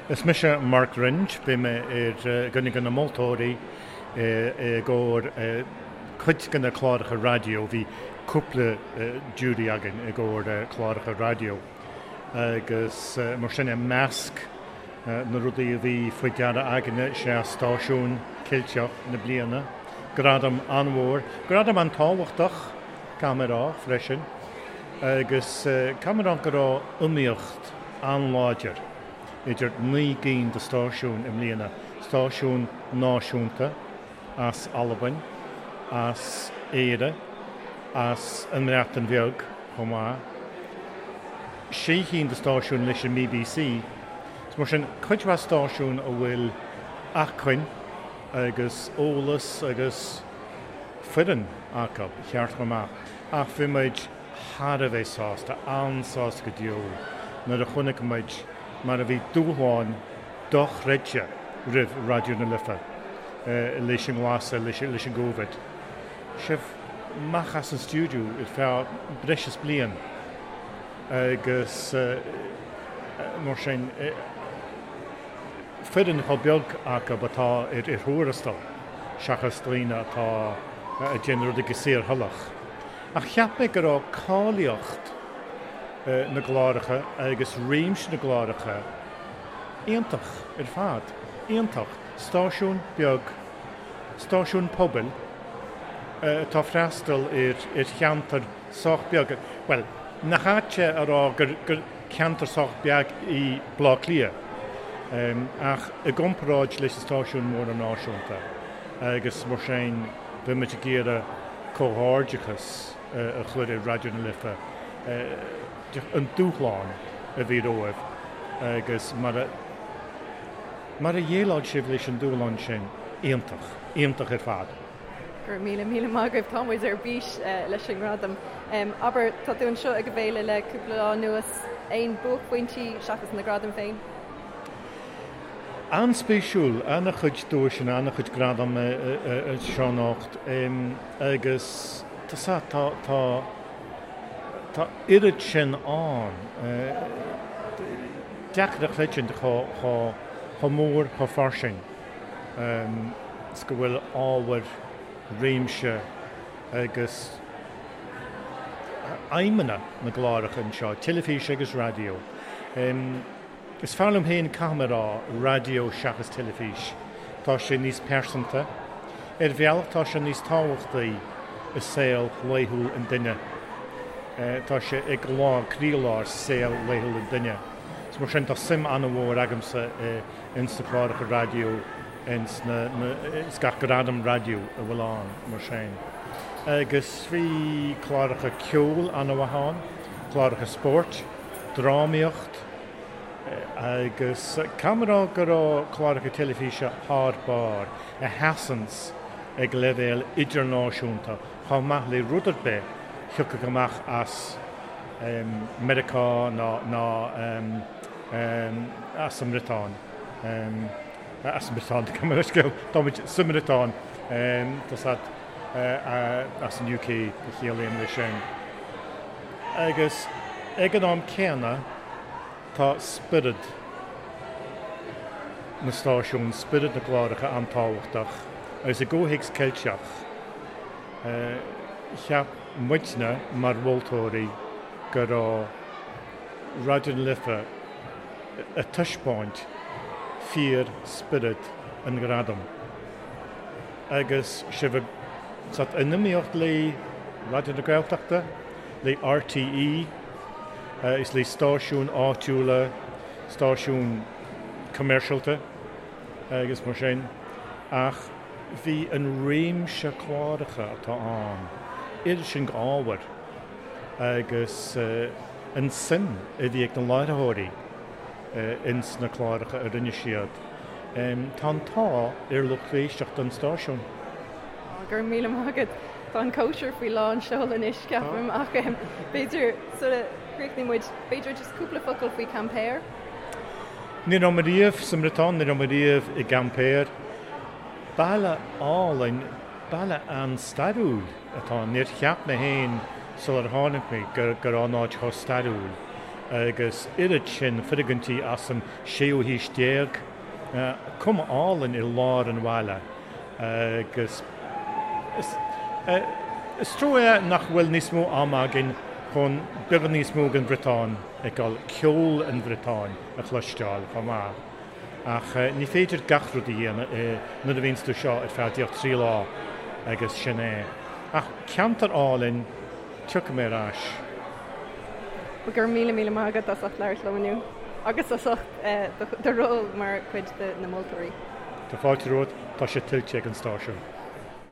Is mise Mark Wringe, bhí mé ar dhuine de na moltóirí i gcomhair cuid de na cláracha raidió, bhí cúpla jury againn i gcomhair cláracha raidió agus mar sin i measc na rudaí a bhí faoi deara againne is ea Stáisiún Ceilteach na Bliana, gradam an-mhór, gradam an-tábhachtach, caithfidh mé a rá freisin, agus caithfidh mé a rá go raibh iomaíocht an-láidir idir 9 gcinn de stáisiúin i mbliana, stáisiún náisiúnta as Albain, as Éire, as an mBreatain Bheag chomh maith, sé chinn de stáisiúin leis an mBBC. Is mar sin, cuid mhaith stáisiún a bhfuil acmhainn agus eolas agus foireann acu ceart go maith. Ach bhí muid thar a bheith sásta, an-sásta go deo nuair a chonaic muid mar a bhí dúshlán dochreidte roimh Raidió na Life leis an nglasadh, leis an gCovid. Sibh amach as an stiúideo ar feadh breis is bliain agus mar sin foireann chomh beag acu atá ar thuarastal seachas daoine atá ag déanamh rudaí go saorthoileach. Ach cheap mé go raibh cáilíocht na gcláracha agus réimse na gcláracha iontach ar fad. Iontach. Stáisiún beag, stáisiún pobail atá ag freastal ar cheantar sách beag, bhuel, nach ait é a rá gur ceantar sách beag í Baile Átha Cliath, ach i gcomparáid leis na stáisiúin mhóra náisiúnta agus mar sin bhí muid ag iarraidh comhghairdeachas a chur ar Raidió na Life, an dúshlán a bhí romhaibh agus mar a mar a dhéileáil sibh leis an dúshlán sin, iontach, iontach ar fad. Go raibh míle míle maith agaibh, tá muid ar bís leis an ngradam. Abair, tá tú anseo ag an bhféile le cúpla lá anuas, aon buaicphointí seachas na gradaim féin? An-spéisiúil, an-chuid duaiseanna, an-chuid gradam anseo anocht agus tá tá tá tá oiread sin ann. Deacair a chreidiúint chomh chomh mór, chomh fairsing is go bhfuil ábhar, réimse agus aidhmeanna na gcláracha anseo, teilifís agus raidió. Is fearr liom féin, caithfidh mé a rá, raidió seachas teilifís. Tá sé níos pearsanta. Ar bhealach tá sé níos tábhachtaí i saol laethúil an duine. Tá sé i gcroílár saol laethúil an duine. Is mar sin tá suim an-mhór agamsa ins na cláracha raidió, ins na, ins gach gradam raidió a bhfuil ann, mar sin. Agus bhí cláracha ceoil an-mhaith ann, cláracha spóirt, drámaíocht, Agus caithfidh mé a rá go raibh cláracha teilifíse thar barr, a sheasanns ag leibhéal idirnáisiúnta chomh maith le rud ar bith thiocfadh amach as Meiriceá ná ná as an mBriotáin. As an mBriotáin, gabh mo leithscéal, tá muid sa mBriotáin, tá 's a'd, as an UK a chiallaím leis sin. Agus ag an am céanna tá spiorad na stáisiún, spiorad na gcláracha an-tábhachtach agus i gcomhthéacs Ceilteach cheap muidne mar mholtóirí go raibh Raidió na Life ag taispeáint fíor-spiorad an ghradaim. Agus sibh ag in iomaíocht le Raidió na Gaeltachta, le RTÉ is le stáisiúin áitiúla, stáisiúin commercialta agus mar sin, ach bhí an réimse cláracha atá ann, oiread sin ábhair agus an suim a bhí ag na láithreoirí ins na cláracha a rinne siad. Tá an t-ádh ar lucht éisteachta an stáisiúin. Go raibh míle maith agat. Tá an cóisir faoi lán seoil anois, ceapaim, ach b'fhéidir sula gcríochnaíonn muid, b'fhéidir just cúpla focal faoi Quimper? Ní raibh mé riamh sa mBriotáin, ní raibh mé riamh i gCuimpear. Baile álainn, baile an-stairiúil atá ann. Níor cheap mé féin sular tháinig mé go raibh an áit chomh stairiúil. Agus oiread sin foirgintí as an séú haois déag, cuma álainn i lár an bhaile agus is trua é nach bhfuil níos mó ama againn chun beagán níos mó den Bhriotáin a fheiceáil, ceol an Bhriotáin a chloisteáil chomh maith. Ach ní féidir gach rud a dhéanamh nuair a bhíonns tú seo ar feadh díreach 3 lá agus sin é. Ach ceantar álainn, tiocfaidh mé ar ais. Go raibh míle míle maith agat as ucht labhairt liom inniu agus as ucht do ról mar chuid de na moltóirí. Tá fáilte romhat, tá sé tuillte ag an stáisiún.